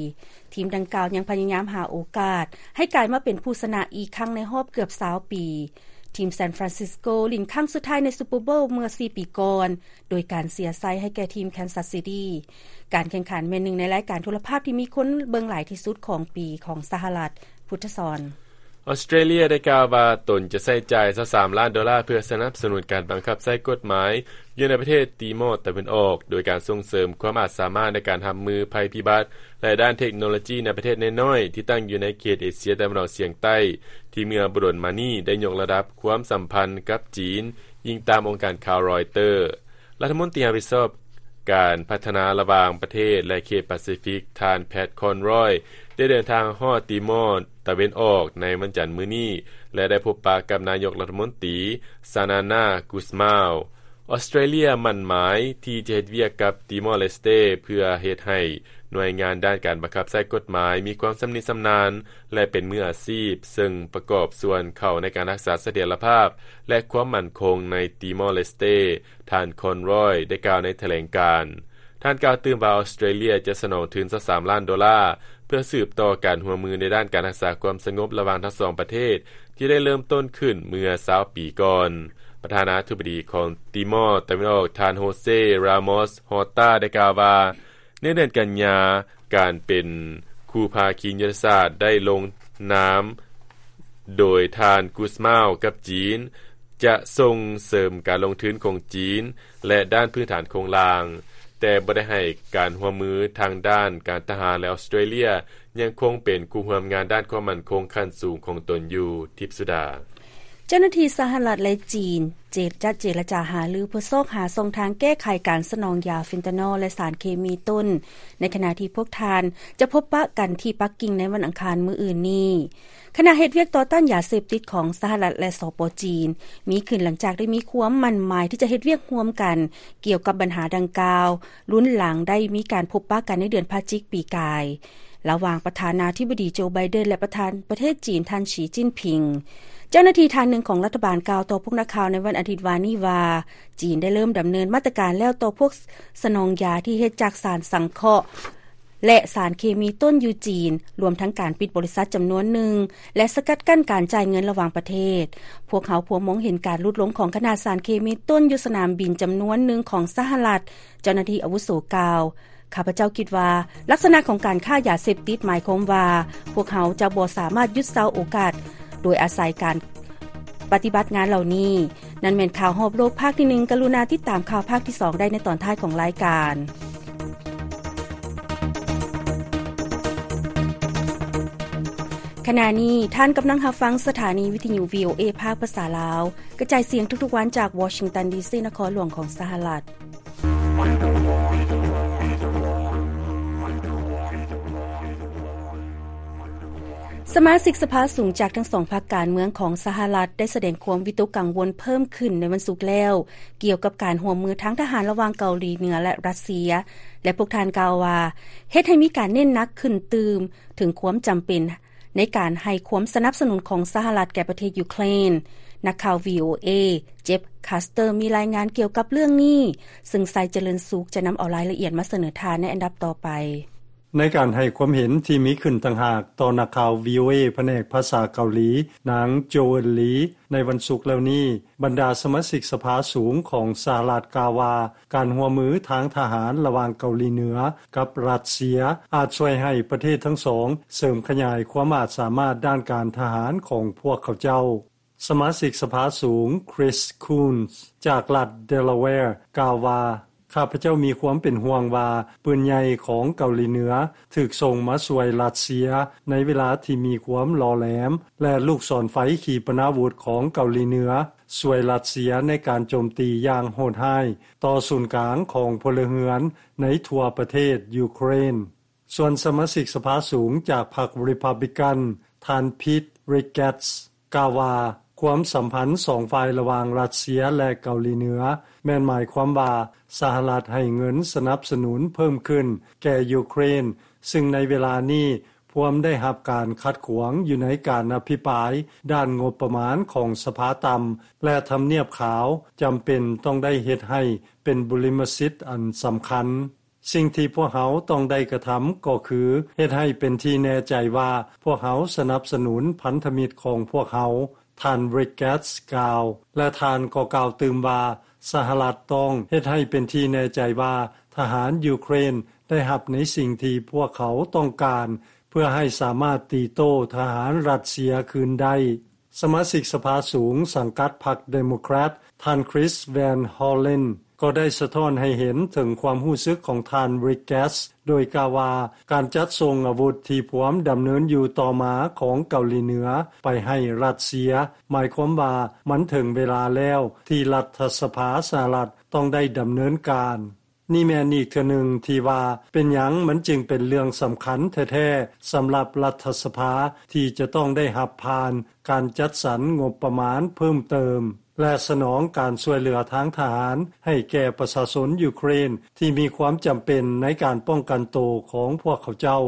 ທີມດັ່ງກ່າວຍັງພະຍາຍາມຫາໂອກາດໃຫ້ກາຍມາເປັນຜູ້ຊະນະອີກຄັ້ງໃນຮອບເກືອບຊາວປີ. ທີມຊານຟຣານຊິສໂກຫຼິ້ນຄັ້ງສຸດທ້າຍໃນຊຸບເປີໂບວເມື່ອສີ່ປີກ່ອນ ໂດຍການເສຍໄຊໃຫ້ແກ່ທີມແຄນຊັສຊິຕີ້. ການແຂ່ງຂັນແມ່ນໜຶ່ງໃນລາຍການໂທລະພາບທີ່ມີຄົນເບິ່ງຫຼາຍທີ່ສຸດຂອງປີຂອງສະຫະລັດ. ພຸດທະສອນ. ອອສເຕຣເລຍໄດ້ກ່າວວ່າຕົນຈະໃຊ້ຈ່າຍຊາວສາມລ້ານໂດລາ ເພື່ອສະໜັບສະໜູນການບັງຄັບໃຊ້ກົດໝາຍຢູ່ໃນປະເທດຕີມໍຕາເວັນອອກ, ໂດຍການສົ່ງເສີມຄວາມອາດສາມາດໃນການຮັບມືໄພພິບັດ ແລະ ດ້ານເທັກໂນໂລຈີໃນປະເທດນ້ອຍໆທີ່ຕັ້ງຢູ່ໃນເຂດເອເຊຍຕາເວັນອອກສຽງໃຕ້, ທີ່ເມື່ອບໍ່ດົນມານີ້ໄດ້ຍົກລະດັບຄວາມສຳພັນກັບຈີນ, ອີງຕາມອົງການຂ່າວຣອຍເຕີ. ລັດຖະມົນຕີຮັບຜິດຊອບການພັດທະນາລະຫວ່າງປະເທດ ແລະ ເຂດປາຊີຟິກ ທ່ານ ແພັດ ຄອນຣອຍ ໄດ້ເດີນທາງຮອດຕີມໍຕາເວັນອອກໃນວັນຈັນມື້ນີ້ ແລະ ໄດ້ພົບປະກັບນາຍົກລັດຖະມົນຕີ ຊານານາ ກູສມາວ. ອອສເຕຣເລຍໝັ້ນໝາຍທີ່ຈະເຮັດວຽກກັບຕີມໍເລສເຕ ເພື່ອເຮັດໃຫ້ໜ່ວຍງານດ້ານການບັງຄັບໃຊ້ກົດໝາຍມີຄວາມຊຳນິຊຳນານ ແລະ ເປັນມືອາຊີບ, ເຊິ່ງປະກອບສ່ວນເຂົ້າໃນການຮັກສາສະຖຽນລະພາບ ແລະ ຄວາມໝັ້ນຄົງໃນຕີມໍເລສເຕ. ທ່ານ ຄອນຣອຍ ໄດ້ກ່າວໃນຖະແຫຼງການ. ທ່ານກ່າວຕື່ມວ່າ ອອສເຕຣເລຍຈະສະໜອງທຶນຊາວສາມລ້ານໂດລາ ເພື່ອສືບຕໍ່ການຮ່ວມມືໃນດ້ານການຮັກສາຄວາມສະຫງົບລະຫວ່າງທັງສອງປະເທດ ທີ່ໄດ້ເລີ່ມຕົ້ນຂຶ້ນເມື່ອຊາວປີກ່ອນ. ປະທານາທິບໍດີຂອງຕີມໍຕາເວັນອອກ ທ່ານ ໂຮເຊ ຣາມອສ ຮອຕາ ໄດ້ກ່າວວ່າ ໃນເດືອນກັນຍາ, ການເປັນຄູ່ພາຄີຍຸດທະສາດໄດ້ລົງນາມໂດຍທ່ານ ກູສມາວ ກັບຈີນ ຈະສົ່ງເສີມການລົງທຶນຂອງຈີນ ແລະ ດ້ານພື້ນຖານໂຄງລ່າງ, ແຕ່ບໍ່ໄດ້ໃຫ້ການຮ່ວມມືທາງດ້ານການທະຫານ ແລະ ອອສເຕຣເລຍຍັງຄົງເປັນຄູ່ຮ່ວມງານດ້ານຄວາມໝັ້ນຄົງຂັ້ນສູງຂອງຕົນຢູ່. ທິບສຸດາ. ເຈົ້າໜ້າທີ່ສະຫະລັດ ແລະ ຈີນ ເຈ ຈະເຈລະຈາຫາລືເພື່ອຊອກຫາຊ່ອງທາງແກ້ໄຂການສະໜອງຢາເຟນຕານໍ ແລະ ສານເຄມີຕົ້ນ ໃນຂະນະທີ່ພວກທ່ານຈະພົບປະກັນທີ່ປັກກິ່ງໃນວັນອັງຄານມື້ອື່ນນີ້. ຄະນະເຮັດວຽກຕໍ່ຕ້ານຢາເສບຕິດຂອງສະຫະລັດ ແລະ ສປ ຈີນ ມີຂຶ້ນຫຼັງຈາກໄດ້ມີຄວາມໝັ້ນໝາຍທີ່ຈະເຮັດວຽກຮ່ວມກັນກ່ຽວກັບບັນຫາດັ່ງກ່າວ, ລຸນຫຼັງໄດ້ມີການພົບປະກັນໃນເດືອນພະຈິກປີກາຍ ລະຫວ່າງປະທານາທິບໍດີໂຈ ໄບເດັນ ແລະ ປະທານປະເທດຈີນ ທ່ານ ສີ ຈິ້ນຜິງ. ເຈົ້າໜ້າທີ່ທ່ານໜຶ່ງຂອງລັດຖະບານກ່າວຕໍ່ພວກນັກຂ່າວໃນວັນອາທິດວານນີ້ວ່າ ຈີນໄດ້ເລີ່ມດຳເນີນມາດຕະການແລ້ວຕໍ່ພວກສະໜອງຢາທີ່ເຮັດຈາກສານສັງເຄາະ ແລະ ສານເຄມີຕົ້ນຢູ່ຈີນ, ລວມທັງການປິດບໍລິສັດຈຳນວນໜຶ່ງ ແລະ ສະກັດກັ້ນການຈ່າຍເງິນລະຫວ່າງປະເທດ. ພວກເຮົາພວມມອງເຫັນການຫຼຸດລົງຂອງຂະໜາດສານເຄມີຕົ້ນຢູ່ສະໜາມບິນຈຳນວນໜຶ່ງຂອງສະຫະລັດ, ເຈົ້າໜ້າທີ່ອາວຸໂສກ່າວ. ຂ້າພະເຈົ້າຄິດວ່າ ລັກສະນະຂອງການຄ້າຢາເສບຕິດໝາຍຄວາມວ່າ ພວກເຮົາຈະບໍ່ສາມາດຢຸດເຊົາໂອກາດ ໂດຍອາໄສການປະຕິບັດງານເຫຼົ່ານີ້. ນັ້ນແມ່ນຂ່າວຮອບໂລກພາກທີໜຶ່ງ. ກະລຸນາຕິດຕາມຂ່າວພາກທີສອງໄດ້ໃນຕອນທ້າຍຂອງລາຍການ. ຂະນະນີ້ທ່ານກຳລັງຮັບຟັງສະຖານີວິທະຍຸ ວີໂອເອ ພາກພາສາລາວ ກະຈາຍສຽງທຸກໆວັນຈາກວໍຊິງຕັນ ດີຊີ ນະຄອນຫຼວງຂອງສະຫະລັດ. ສະມາຊິກສະພາສູງຈາກທັງສອງພັກການເມືອງຂອງສະຫະລັດ ໄດ້ສະແດງຄວາມວິຕົກກັງວົນເພີ່ມຂຶ້ນໃນວັນສຸກແລ້ວ ກ່ຽວກັບການຮ່ວມມືທາງທະຫານລະຫວ່າງເກົາຫຼີເໜືອ ແລະ ຣັດເຊຍ ແລະ ພວກທ່ານກ່າວວ່າ ເຮັດໃຫ້ມີການເນັ້ນໜັກຂຶ້ນຕື່ມເຖິງຄວາມຈຳເປັນ ໃນການໃຫ້ຄວາມສະໜັບສະໜູນຂອງສະຫະລັດແກ່ປະເທດຢູເຄຣນ. ນັກຂ່າວ ວີໂອເອ ເຈັບ ຄາສເຕີ ມີລາຍງານກ່ຽວກັບເລື່ອງນີ້, ເຊິ່ງໄຊຈະເລີນສຸກຈະນຳເອົາລາຍລະອຽດມາສະເໜີທ່ານໃນອັນດັບຕໍ່ໄປ. ໃນການໃຫ້ຄວາມເຫັນທີ່ມີຂຶ້ນຕ່າງຫາກຕໍ່ນັກຂ່າວ ວີໂອເອ ພະແນກພາສາເກົາຫຼີ, ນາງ ໂຈເວິນ ລີ ໃນວັນສຸກແລ້ວນີ້, ບັນດາສະມາຊິກສະພາສູງຂອງສະຫະລັດກ່າວວ່າ ການຮ່ວມມືທາງທະຫານລະຫວ່າງເກົາຫຼີເໜືອກັບຣັດເຊຍ ອາດຊ່ວຍໃຫ້ປະເທດທັງສອງເສີມຂະຫຍາຍຄວາມອາດສາມາດດ້ານການທະຫານຂອງພວກເຂົາເຈົ້າ. ສະມາຊິກສະພາສູງ Chris Coons ຈາກລັດ Delaware ກ່າວວ່າ ຂ້າພະເຈົ້າມີຄວາມເປັນຫ່ວງວ່າ ປືນໃຫຍ່ຂອງເກົາຫຼີເໜືອ ຖືກສົ່ງມາຊ່ວຍຣັດເຊຍ ໃນເວລາທີ່ມີຄວາມຫຼໍ່ແຫຼມ ແລະ ລູກສອນໄຟຂີປະນາວຸດຂອງເກົາຫຼີເໜືອ ຊ່ວຍຣັດເຊຍໃນການໂຈມຕີຢ່າງໂຫດຮ້າຍ ຕໍ່ສູນກາງຂອງພົນລະເຮືອນ ໃນທົ່ວປະເທດຢູເຄຣນ. ສ່ວນສະມາຊິກສະພາສູງຈາກພັກ Republican ທ່ານ Pete Ricketts ກ່າວວ່າ ຄວາມສຳພັນສອງຝ່າຍລະຫວ່າງຣັດເຊຍ ແລະ ເກົາຫຼີເໜືອ ແມ່ນໝາຍຄວາມວ່າ ສະຫະລັດໃຫ້ເງິນສະໜັບສະໜູນເພີ່ມຂຶ້ນແກ່ຢູເຄຣນ ຊຶ່ງໃນເວລານີ້ພວມໄດ້ຮັບການຂັດຂວາງຢູ່ໃນການອະພິປາຍດ້ານງົບປະມານຂອງສະພາຕ່ຳ ແລະ ທຳນຽບຂາວຈຳເປັນຕ້ອງໄດ້ເຮັດໃຫ້ເປັນບຸລິມະສິດອັນສຳຄັນ. ສິ່ງທີ່ພວກເຮົາຕ້ອງໄດ້ກະທຳກໍຄື ເຮັດໃຫ້ເປັນທີ່ແນ່ໃຈວ່າ ພວກເຮົາສະໜັບສະໜູນພັນທະມິດຂອງພວກເຮົາ, ທ່ານ Ricketts ກ່າວ ແລະ ທ່ານກໍກ່າວຕື່ມວ່າ ສະຫະລັດຕ້ອງເຮັດໃຫ້ເປັນທີ່ແນ່ໃຈວ່າ ທະຫານຢູເຄຣນໄດ້ຮັບໃນສິ່ງທີ່ພວກເຂົາຕ້ອງການ ເພື່ອໃຫ້ສາມາດຕີໂຕ້ທະຫານຣັດເຊຍຄືນໄດ້. ສະມາຊິກສະພາສູງສັງກັດພັກ Democrat ທ່ານ Chris Van Hollen ກໍໄດ້ສະທ້ອນໃຫ້ເຫັນເຖິງຄວາມຮູ້ສຶກຂອງທ່ານ Ricketts ໂດຍກ່າວວ່າ ການຈັດສົ່ງອາວຸດທີ່ພວມດຳເນີນຢູ່ຕໍ່ມາຂອງເກົາຫຼີເໜືອໄປໃຫ້ຣັດເຊຍ ໝາຍຄວາມວ່າມັນເຖິງເວລາແລ້ວທີ່ລັດຖະສະພາສະຫະລັດຕ້ອງໄດ້ດຳເນີນການ. ນີ້ແມ່ນອີກເທື່ອໜຶ່ງທີ່ວ່າ ເປັນຫຍັງມັນຈຶ່ງເປັນເລື່ອງສຳຄັນແທ້ໆ ສຳລັບລັດຖະສະພາທີ່ຈະຕ້ອງໄດ້ຮັບຜ່ານການຈັດສັນງົບປະມານເພີ່ມເຕີມ ແລະ ສະໜອງການຊ່ວຍເຫຼືອທາງທະຫານໃຫ້ແກ່ປະຊາຊົນຢູເຄຣນທີ່ມີຄວາມຈຳເປັນໃນການປ້ອງກັນໂຕຂອງພວກເຂົາເຈົ້າ.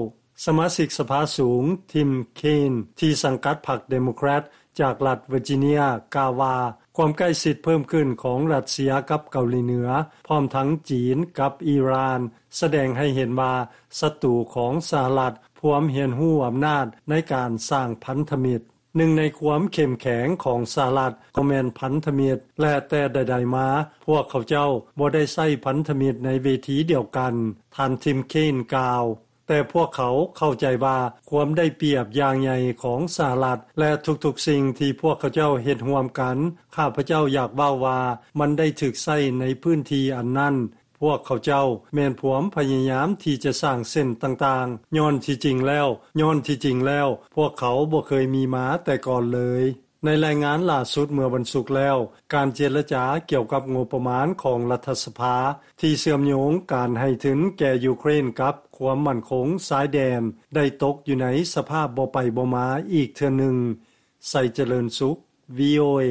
ສະມາຊິກສະພາສູງ Tim Kaine ທີ່ສັງກັດພັກ Democrat ຈາກລັດ Virginia ກ່າວວ່າ ຄວາມໃກ້ຊິດເພີ່ມຂຶ້ນຂອງຣັດເຊຍກັບເກົາຫຼີເໜືອ ພ້ອມທັງຈີນກັບອີຣານ ສະແດງໃຫ້ເຫັນວ່າ ສັດຕູຂອງສະຫະລັດພວມຮຽນຮູ້ອຳນາດໃນການສ້າງພັນທະມິດ. ໜຶ່ງໃນຄວາມເຂັ້ມແຂງຂອງສະຫະລັດກໍແມ່ນພັນທະມິດ ແລະ ແຕ່ໃດໆມາ ພວກເຂົາເຈົ້າບໍ່ໄດ້ໃຊ້ພັນທະມິດໃນເວທີດຽວກັນ, ທ່ານ Tim Kaine ກ່າວ. ແຕ່ພວກເຂົາເຂົ້າໃຈວ່າຄວາມໄດ້ປຽບຢ່າງໃຫຍ່ຂອງສະຫະລັດ ແລະ ທຸກໆສິ່ງທີ່ພວກເຂົາເຈົ້າເຮັດຮ່ວມກັນ, ຂ້າພະເຈົ້າຢາກເວົ້າວ່າມັນໄດ້ຖືກໃຊ້ໃນພື້ນທີ່ອັນນັ້ນ. ພວກເຂົາເຈົ້າແມ່ນພວມພະຍາຍາມທີ່ຈະສ້າງເສັ້ນຕ່າງໆ, ຍ້ອນທີ່ຈິງແລ້ວ, ຍ້ອນທີ່ຈິງແລ້ວ ພວກເຂົາບໍ່ເຄີຍມີມາແຕ່ກ່ອນເລີຍ. ໃນລາຍງານລ່າສຸດເມື່ອວັນສຸກແລ້ວ, ການເຈລະຈາກ່ຽວກັບງົບປະມານຂອງລັດຖະສະພາ ທີ່ເຊື່ອມໂຍງການໃຫ້ທຶນແກ່ຢູເຄຣນກັບຄວາມໝັ້ນຄົງຊາຍແດນ ໄດ້ຕົກຢູ່ໃນສະພາບບໍ່ໄປບໍ່ມາອີກເທື່ອໜຶ່ງ. ໄຊຈະເລີນສຸກ VOA.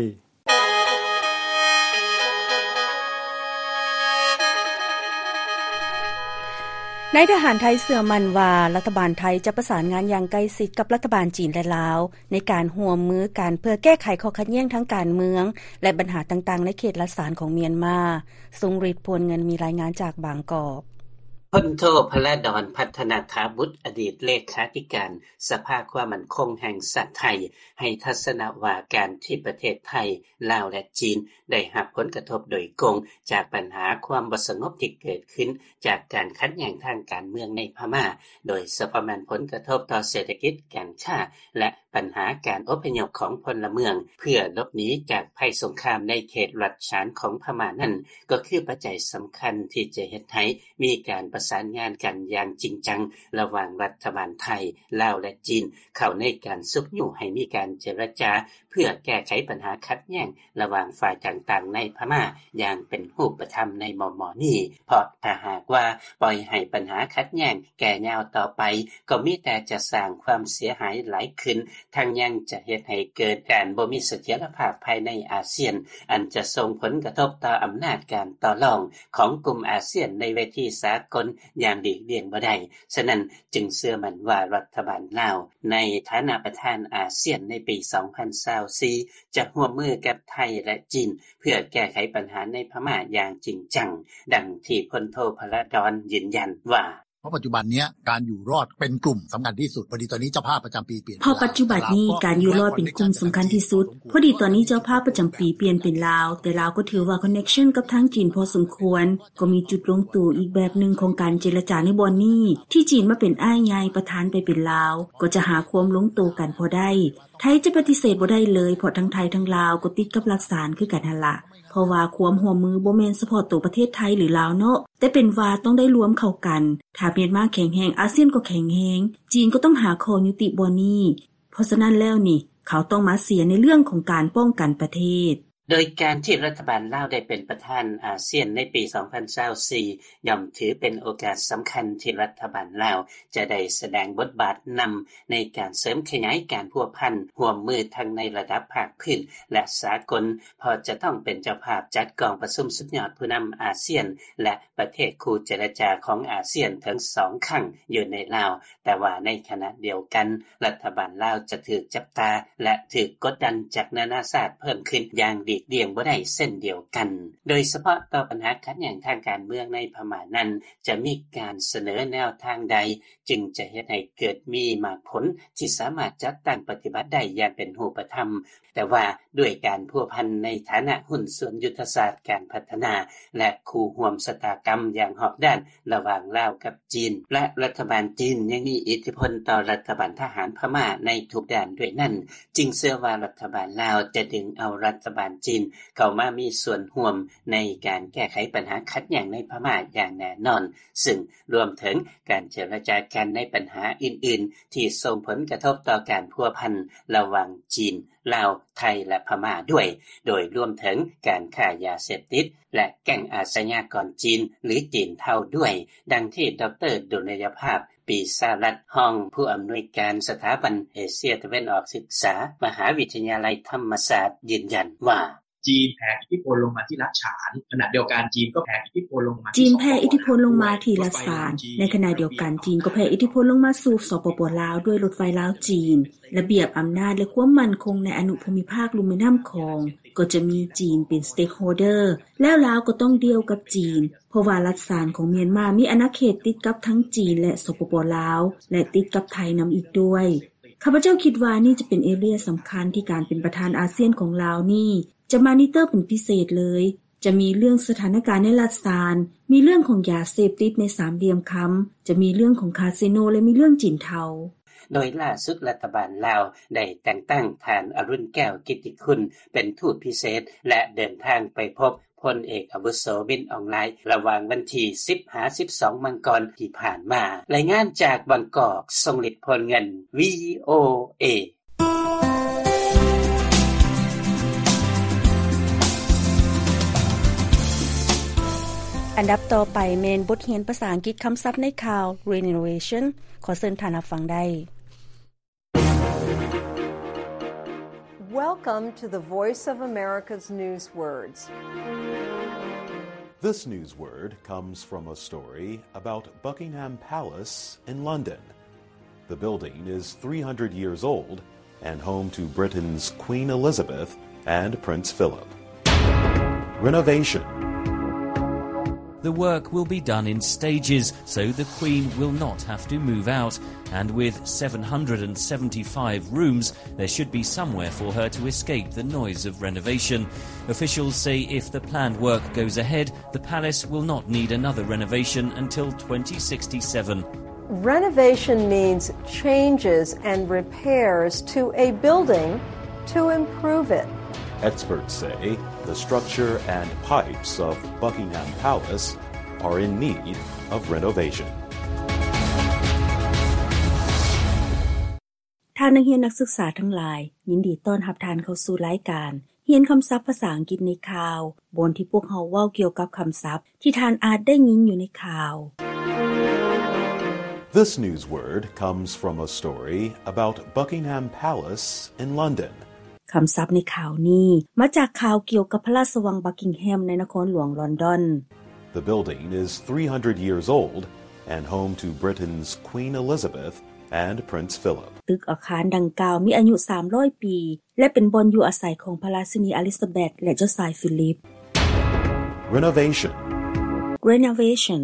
ນາຍທະຫານໄທເຊື່ອໝັ້ນວ່າ ລັດຖະບານໄທຈະປະສານງານຢ່າງໃກ້ຊິດກັບລັດຖະບານຈີນ ແລະ ລາວ ໃນການຮ່ວມມືກັນເພື່ອແກ້ໄຂຂໍ້ຂັດແຍ່ງທາງການເມືອງ ແລະ ບັນຫາຕ່າງໆໃນເຂດລັດສານຂອງມຽນມາ. ຊົງລິດ ພວນເງິນ ມີລາຍງານຈາກບາງກອກ. ພົນໂທ ພະລາດອນ ພັດທະນາຖາບຸດ ອະດີດເລຂາທິການສະພາຄວາມໝັ້ນຄົງແຫ່ງຊາດໄທ ໃຫ້ທັດສະນະວ່າການທີ່ປະເທດໄທ, ລາວ ແລະ ຈີນ ໄດ້ຮັບຜົນກະທົບໂດຍກົງຈາກບັນຫາຄວາມບໍ່ສະຫງົບທີ່ເກີດຂຶ້ນຈາກການຂັດແຍ່ງທາງການເມືອງໃນພະມ້າ, ໂດຍສະເພາະແມ່ນຜົນກະທົບຕໍ່ເສດຖະກິດ, ການຄ້າ ແລະ ບັນຫາການອົບພະຍົບຂອງພົນລະເມືອງເພື່ອຫຼົບໜີຈາກໄພສົງຄາມໃນເຂດລັດສານຂອງພະມ້ານັ້ນ ກໍຄືປັດໄຈສຳຄັນທີ່ຈະເຮັດໃຫ້ມີການປະສານງານກັນຢ່າງຈິງຈັງ ລະຫວ່າງລັດຖະບານໄທ, ລາວ ແລະ ຈີນ ເຂົ້າໃນການຊຸກຍູ້ໃຫ້ມີການເຈລະຈາ ເພື່ອແກ້ໄຂບັນຫາຂັດແຍ່ງລະຫວ່າງຝ່າຍຕ່າງໆໃນພະມ້າຢ່າງເປັນຮູບປະທຳໃນມໍ່ໆນີ້, ເພາະຖ້າຫາກວ່າປ່ອຍໃຫ້ບັນຫາຂັດແຍ່ງແກ່ຍາວຕໍ່ໄປ ກໍມີແຕ່ຈະສ້າງຄວາມເສຍຫາຍຫຼາຍຂຶ້ນ, ທັງຍັງຈະເຮັດໃຫ້ເກີດການບໍ່ມີສະຖຽນລະພາບພາຍໃນອາຊຽນ, ອັນຈະສົ່ງຜົນກະທົບຕໍ່ອຳນາດການຕໍ່ລອງຂອງກຸ່ມອາຊຽນໃນເວທີສາກົນຢ່າງຫຼີກລ່ຽງບໍ່ໄດ້. ສະນັ້ນຈຶ່ງເຊື່ອໝັ້ນວ່າລັດຖະບານລາວ ໃນຖານະປະທານອາຊຽນໃນປີສອງພັນຊາວສີ່ ຈະຮ່ວມມືກັບໄທ ແລະ ຈີນ ເພື່ອແກ້ໄຂບັນຫາໃນພະມ້າຢ່າງຈິງຈັງ, ດັ່ງທີ່ພົນໂທ ພະລາດອນ ຢືນຢັນວ່າ: เพราะปัจจุบันเนี้ยการอยู่รอดเป็นกลุ่มสำคัญที่สุด พอดีตอนนี้เจ้าภาพประจำปีเปลี่ยน เพราะปัจจุบันนี้การอยู่รอดเป็นกลุ่มสำคัญที่สุด พอดีตอนนี้เจ้าภาพประจำปีเปลี่ยนเป็นลาว แต่ลาวก็ถือว่าคอนเนคชันกับทางจีนพอสมควร ก็มีจุดลงตัวอีกแบบหนึ่งของการเจรจาในบ่อนนี้ ที่จีนมาเป็นอ้ายใหญ่ประธานไปเป็นลาว ก็จะหาความลงตัวกันพอได้ ไทยจะปฏิเสธบ่ได้เลย เพราะทั้งไทยทั้งลาวก็ติดกับหลักสารคือกันหั่นละ เพราะว่าความร่วมมือบ่แม่นเฉพาะตัวประเทศไทยหรือลาวเนาะ แต่เป็นว่าต้องได้รวมเข้ากัน ถ้าเมียนมาแข็งแรง อาเซียนก็แข็งแรง จีนก็ต้องหาข้อยุติบ่อนนี้ เพราะฉะนั้นแล้วนี่ เขาต้องมาเสียในเรื่องของการป้องกันประเทศ โดยการที่รัฐบาลลาวได้เป็นประธานอาเซียนในปีสองพันซาวสี่ ย่อมถือเป็นโอกาสสำคัญที่รัฐบาลลาวจะได้แสดงบทบาทนำในการเสริมขยายการพัวพันร่วมมือทั้งในระดับภาคพื้นและสากล เพราะจะต้องเป็นเจ้าภาพจัดกองประชุมสุดยอดผู้นำอาเซียน และประเทศคู่เจรจาของอาเซียนทั้งสองครั้งอยู่ในลาว แต่ว่าในขณะเดียวกัน รัฐบาลลาวจะถูกจับตา และถูกกดดันจากนานาชาติเพิ่มขึ้นอย่างหลีกเลี่ยงบ่ได้เช่นเดียวกัน โดยเฉพาะต่อปัญหาขัดแย้งทางการเมืองในพม่านั้น จะมีการเสนอแนวทางใด จึงจะเฮ็ดให้เกิดมีหมากผลที่สามารถจัดตั้งปฏิบัติได้อย่างเป็นรูปธรรม แต่ว่าด้วยการพัวพันในฐานะหุ้นส่วนยุทธศาสตร์การพัฒนา และคู่ร่วมชะตากรรมอย่างรอบด้านระหว่างลาวกับจีน และรัฐบาลจีนยังมีอิทธิพลต่อรัฐบาลทหารพม่าในทุกด้านด้วยนั้น จึงเชื่อว่ารัฐบาลลาวจะดึงเอารัฐบาลจีนเข้ามามีส่วนร่วมในการแก้ไขปัญหาขัดแย้งในพม่าอย่างแน่นอน ซึ่งรวมถึงการเจรจากันในปัญหาอื่นๆ ที่ส่งผลกระทบต่อการพัวพันระหว่างจีน ลาว ไทย และพม่าด้วย โดยรวมถึงการค้ายาเสพติด และแก๊งอาชญากรจีน หรือจีนเทาด้วย ดังที่ดร. ดุลยภาพ ปีสารัตน์ รองผู้อำนวยการสถาบันเอเชียตะวันออกศึกษา มหาวิทยาลัยธรรมศาสตร์ ยืนยันว่า จีนแผ่อิทธิพลลงมาที่รัฐฉาน ขณะเดียวกันจีนก็แผ่อิทธิพลลงมาที่ จีนแผ่อิทธิพลลงมาที่รัฐฉาน ในขณะเดียวกันจีนก็แผ่อิทธิพลลงมาสู่ สปป ลาว ด้วยรถไฟลาว-จีน ระเบียบอำนาจและความมั่นคงในอนุภูมิภาคลุ่มแม่น้ำของ ก็จะมีจีนเป็น stakeholder แล้วลาวก็ต้องดีลกับจีน เพราะว่ารัฐฉานของเมียนมามีอาณาเขตติดกับทั้งจีนและ สปป ลาว และติดกับไทยนำอีกด้วย ข้าพเจ้าคิดว่านี่จะเป็น area สำคัญที่การเป็นประธานอาเซียนของลาวนี่ จะมอนิเตอร์เป็นพิเศษเลย จะมีเรื่องสถานการณ์ในรัฐฉาน มีเรื่องของยาเสพติดในสามเหลี่ยมคำ จะมีเรื่องของคาสิโน และมีเรื่องจีนเทา โดยล่าสุดรัฐบาลลาวได้แต่งตั้งท่านอรุณแก้วกิตติคุณเป็นทูตพิเศษ และเดินทางไปพบพลเอกอาวุโสมินอองหลายน์ ระหว่างวันที่สิบหาสิบสองมังกรที่ผ่านมา รายงานจากบางกอก ทรงฤทธิ์ โพลเงิน VOA ອັນດັບຕໍ່ໄປແມ່ນບົດຮຽນພາສາອັງກິດຄຳສັບໃນຂ່າວ Renovation ຂໍເຊີນທ່ານຮັບຟັງໄດ້. Welcome to the Voice of America's Newswords. This newsword comes from a story about Buckingham Palace in London. The building is three hundred years old and home to Britain's Queen Elizabeth and Prince Philip. Renovation. The work will be done in stages, so the Queen will not have to move out, and with seven hundred and seventy-five rooms, there should be somewhere for her to escape the noise of renovation. Officials say if the planned work goes ahead, the palace will not need another renovation until twenty sixty-seven. Renovation means changes and repairs to a building to improve it. Experts say the structure and pipes of Buckingham Palace are in need of renovation. ທ່ານນັກຮຽນນັກສຶກສາທັງຫຼາຍ, ຍິນດີຕ້ອນຮັບທ່ານເຂົ້າສູ່ລາຍການຮຽນຄຳສັບພາສາອັງກິດໃນຂ່າວ, ບ່ອນທີ່ພວກເຮົາເວົ້າກ່ຽວກັບຄຳສັບທີ່ທ່ານອາດໄດ້ຍິນຢູ່ໃນຂ່າວ. This newsword comes from a story about Buckingham Palace in London. ຄຳສັບໃນຂ່າວນີ້ມາຈາກຂ່າວກ່ຽວກັບພະລາຊະວັງບັກກິງແຮມໃນນະຄອນຫຼວງລອນດອນ. The building is three hundred years old and home to Britain's Queen Elizabeth and Prince Philip. ຕຶກອາຄານດັ່ງກ່າວມີອາຍຸສາມຮ້ອຍປີ ແລະ ເປັນບ່ອນຢູ່ອາໄສຂອງພະລາຊິນີອາລິຊາເບັດ ແລະ ເຈົ້າຊາຍຟີລິບ. Renovation. Renovation.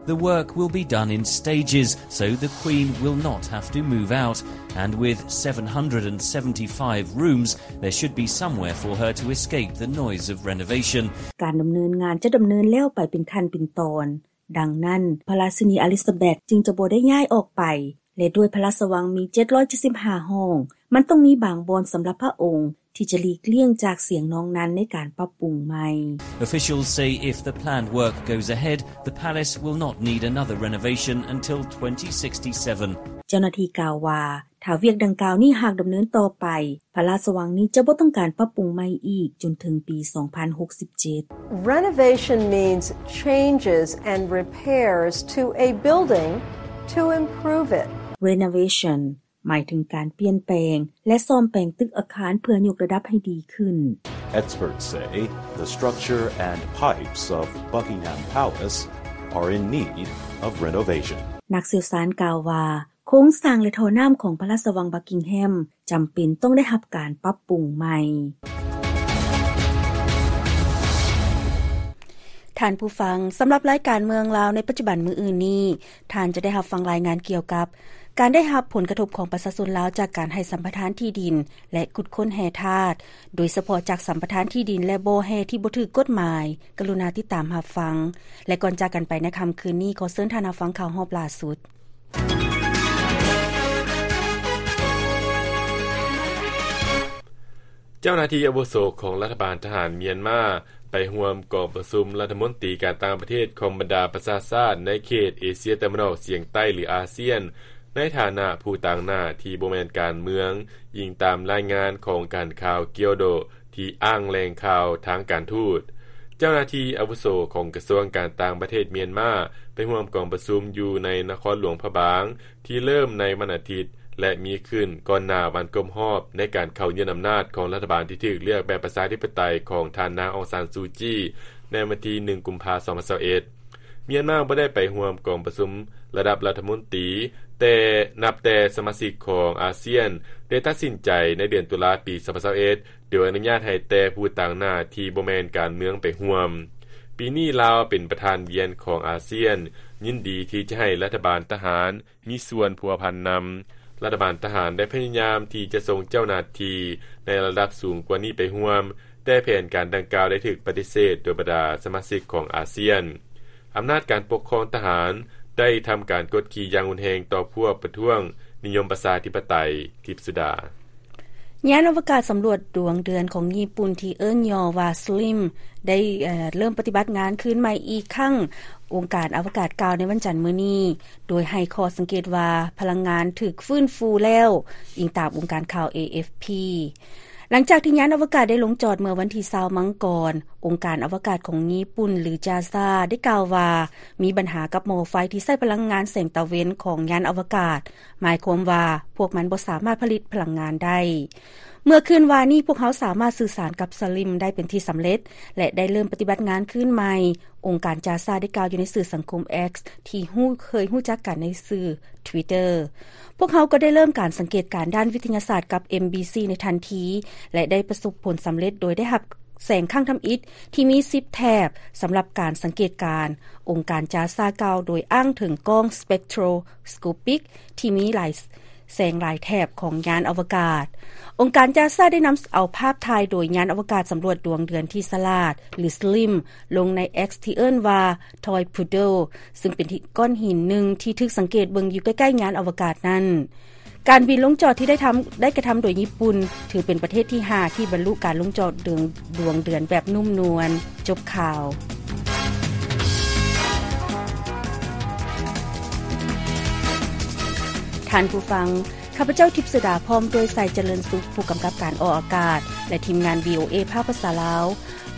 The work will be done in stages, so the Queen will not have to move out, and with seven hundred and seventy-five rooms, there should be somewhere for her to escape the noise of renovation. ການດຳເນີນງານຈະດຳເນີນແລ້ວໄປເປັນຂັ້ນເປັນຕອນ. ດັ່ງນັ້ນ, ພະລາຊິນີອາລິຊາແບັດຈຶ່ງຈະບໍ່ໄດ້ຍ້າຍອອກໄປ, ແລະ ດ້ວຍພະລາຊະວັງມີເຈັດຮ້ອຍເຈັດສິບຫ້າຫ້ອງ, ມັນຕ້ອງມີບາງບ່ອນສຳລັບພະອົງທີ່ຈະຫຼີກລ່ຽງຈາກສຽງນອງນັນໃນການປັບປຸງໃໝ່. Officials say if the planned work goes ahead, the palace will not need another renovation until twenty sixty-seven. ເຈົ້າໜ້າທີ່ກ່າວວ່າ ຖ້າວຽກດັ່ງກ່າວນີ້ຫາກດຳເນີນຕໍ່ໄປ, ພະລາຊະວັງນີ້ຈະບໍ່ຕ້ອງການປັບປຸງໃໝ່ອີກຈົນເຖິງປີສອງພັນຫົກສິບເຈັດ. Renovation means changes and repairs to a building to improve it. Renovation ໝາຍເຖິງການປ່ຽນແປງ ແລະ ສ້ອມແປງຕຶກອາຄານເພື່ອຍົກລະດັບໃຫ້ດີຂຶ້ນ. Experts say the structure and pipes of Buckingham Palace are in need of renovation. ນັກຊ່ຽວຊານກ່າວວ່າ ໂຄງສ້າງ ແລະ ທໍ່ນ້ຳຂອງພະລາຊະວັງ Buckingham ຈຳເປັນຕ້ອງໄດ້ຮັບການປັບປຸງໃໝ່. ທ່ານຜູ້ຟັງ, ສຳລັບລາຍການເມືອງລາວໃນປັດຈຸບັນມື້ອື່ນນີ້, ທ່ານຈະໄດ້ຮັບຟັງລາຍງານກ່ຽວກັບການໄດ້ຮັບຜົນກະທົບຂອງປະຊາຊົນລາວຈາກການໃຫ້ສຳປະທານທີ່ດິນ ແລະ ຂຸດຄົ້ນແຮ່ທາດ, ໂດຍສະເພາະຈາກສຳປະທານທີ່ດິນ ແລະ ບໍ່ແຮ່ທີ່ບໍ່ຖືກກົດໝາຍ. ກະລຸນາຕິດຕາມຮັບຟັງ. ແລະ ກ່ອນຈາກກັນໄປໃນຄ່ຳຄືນນີ້, ຂໍເຊີນທ່ານຮັບຟັງຂ່າວຮອບລ່າສຸດ. ເຈົ້າໜ້າທີ່ອາວຸໂສຂອງລັດຖະບານທະຫານມຽນມາ ໄປຮ່ວມກອງປະຊຸມລັດຖະມົນຕີການຕ່າງປະເທດຂອງບັນດາປະຊາຊາດໃນເຂດເອເຊຍຕາເວັນອອກສຽງໃຕ້ ຫຼື ອາຊຽນ ໃນຖານະຜູ້ຕາງໜ້າທີ່ບໍ່ແມ່ນການເມືອງ, ອີງຕາມລາຍງານຂອງການຂ່າວກຽວໂດ ທີ່ອ້າງແຫຼ່ງຂ່າວທາງການທູດ. ເຈົ້າໜ້າທີ່ອາວຸໂສຂອງກະຊວງການຕ່າງປະເທດມຽນມາ ໄປຮ່ວມກອງປະຊຸມຢູ່ໃນນະຄອນຫຼວງພະບາງ ທີ່ເລີ່ມໃນວັນອາທິດ ແລະ ມີຂຶ້ນກ່ອນໜ້າວັນຄົບຮອບໃນການເຂົ້າຍຶດອຳນາດຂອງລັດຖະບານທີ່ຖືກເລືອກແບບປະຊາທິປະໄຕຂອງທ່ານນາງ ອອງຊານ ຊູຈີ ໃນວັນທີໜຶ່ງ ກຸມພາ ສອງພັນຊາວເອັດ. ມຽນມາບໍ່ໄດ້ໄປຮ່ວມກອງປະຊຸມລະດັບລັດຖະມົນຕີ ແຕ່ນັບແຕ່ສະມາຊິກຂອງອາຊຽນໄດ້ຕັດສິນໃຈໃນເດືອນຕຸລາປີສອງພັນຊາວເອັດ ໂດຍອະນຸຍາດໃຫ້ແຕ່ຜູ້ຕາງໜ້າທີ່ບໍ່ແມ່ນການເມືອງໄປຮ່ວມ. ປີນີ້ລາວເປັນປະທານວຽນຂອງອາຊຽນ, ຍິນດີທີ່ຈະໃຫ້ລັດຖະບານທະຫານ ມີສ່ວນພົວພັນນຳ. ລັດຖະບານທະຫານໄດ້ພະຍາຍາມທີ່ຈະສົ່ງເຈົ້າໜ້າທີ່ໃນລະດັບສູງກວ່ານີ້ໄປຮ່ວມ, ແຕ່ແຜນການດັ່ງກ່າວໄດ້ຖືກປະຕິເສດໂດຍບັນດາສະມາຊິກຂອງອາຊຽນ. ອຳນາດການປົກຄອງທະຫານໄດ້ທຳການກົດຂີ່ຢ່າງຮຸນແຮງຕໍ່ພວກປະທ້ວງນິຍົມປະຊາທິປະໄຕ. ທິບສຸດາ. ຍານອະວະກາດສຳຫຼວດດວງເດືອນຂອງຍີ່ປຸ່ນທີ່ເອີ້ນຫຍໍ້ວ່າ SLIM ໄດ້ ເອີ່ ເລີ່ມປະຕິບັດງານຄືນໃໝ່ອີກຄັ້ງ, ອົງການອະວະກາດກ່າວໃນວັນຈັນມື້ນີ້, ໂດຍໃຫ້ຂໍ້ສັງເກດວ່າພະລັງງານຖືກຟື້ນຟູແລ້ວ, ອີງຕາມອົງການຂ່າວ ເອເອັຟພີ. ຫຼັງຈາກທີ່ຍານອະວະກາດໄດ້ລົງຈອດເມື່ອວັນທີຊາວ ມັງກອນ, ອົງການອະວະກາດຂອງຍີ່ປຸ່ນ ຫຼື ຈາຊາ ໄດ້ກ່າວວ່າ ມີບັນຫາກັບໝໍ້ໄຟທີ່ໃຊ້ພະລັງງານແສງຕາເວັນຂອງຍານອະວະກາດ, ໝາຍຄວາມວ່າພວກມັນບໍ່ສາມາດຜະລິດພະລັງງານໄດ້. ເມື່ອຄືນວານນີ້, ພວກເຮົາສາມາດສື່ສານກັບ SLIM ໄດ້ເປັນທີ່ສຳເລັດ ແລະ ໄດ້ເລີ່ມປະຕິບັດງານຄືນໃໝ່, ອົງການຈາຊາໄດ້ກ່າວຢູ່ໃນສື່ສັງຄົມ X ທີ່ຮູ້ ເຄີຍຮູ້ຈັກກັນໃນຊື່ Twitter. ພວກເຮົາກໍໄດ້ເລີ່ມການສັງເກດການດ້ານວິທະຍາສາດກັບ MBC ໃນທັນທີ ແລະ ໄດ້ປະສົບຜົນສຳເລັດໂດຍໄດ້ຮັບແສງຄັ້ງທຳອິດທີ່ມີສິບແຖບສຳລັບການສັງເກດການ, ອົງການຈາຊາກ່າວໂດຍອ້າງເຖິງກ້ອງ spectroscopic ທີ່ມີຫຼາຍ ແສງຫຼາຍແຖບຂອງຍານອະວະກາດ. ອົງການຈາຊາໄດ້ນຳເອົາພາບຖ່າຍໂດຍຍານອະວະກາດສຳຫຼວດດວງເດືອນທີ່ສະຫຼາດ ຫຼື SLIM ລົງໃນ X ທີ່ເອີ້ນວ່າ Toy Poodle ຊຶ່ງເປັນທີ່ ກ້ອນຫີນໜຶ່ງທີ່ຖືກສັງເກດເບິ່ງຢູ່ໃກ້ໆຍານອະວະກາດນັ້ນ. ການບິນລົງຈອດທີ່ໄດ້ທຳ ໄດ້ກະທຳໂດຍຍີ່ປຸ່ນ ຖືເປັນປະເທດທີຫ້າທີ່ບັນລຸການລົງຈອດດວງ ດວງເດືອນແບບນຸ້ມນວນ. ຈົບຂ່າວ. ທ່ານຜູ້ຟັງ, ຂ້າພະເຈົ້າ ທິບສຸດາ ພ້ອມດ້ວຍ ໄຊຈະເລີນສຸກ ຜູ້ກຳກັບການອອກອາກາດ ແລະ ທີມງານ VOA ພາກພາສາລາວ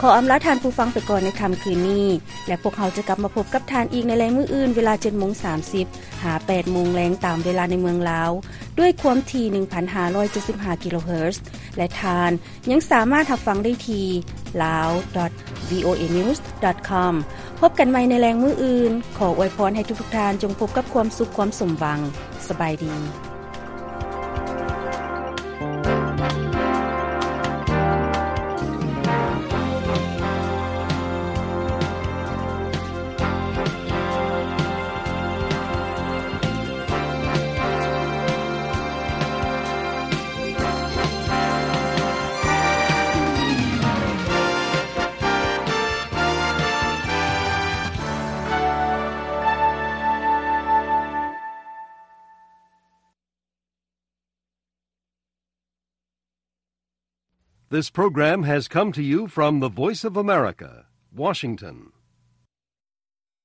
ຂໍອຳລາທ່ານຜູ້ຟັງໄປກ່ອນໃນຄ່ຳຄືນນີ້ ແລະ ພວກເຮົາຈະກັບມາພົບກັບທ່ານອີກໃນແລງມື້ອື່ນ ເວລາເຈັດໂມງສາມສິບ ຫາ ແປດໂມງແລງ ຕາມເວລາໃນເມືອງລາວ ດ້ວຍຄວາມຖີ່ ໜຶ່ງພັນຫ້າຮ້ອຍເຈັດສິບຫ້າ ກິໂລເຮີດ ແລະ ທ່ານຍັງສາມາດຮັບຟັງໄດ້ທີ່ ลาว ดอท วีโอเอ นิวส์ ดอท คอม ພົບກັນໃໝ່ໃນແລງມື້ອື່ນ. ຂໍອວຍພອນໃຫ້ທຸກໆທ່ານຈົ່ງພົບກັບຄວາມສຸກຄວາມສົມຫວັງ. ສະບາຍດີ. This program has come to you from the Voice of America, Washington.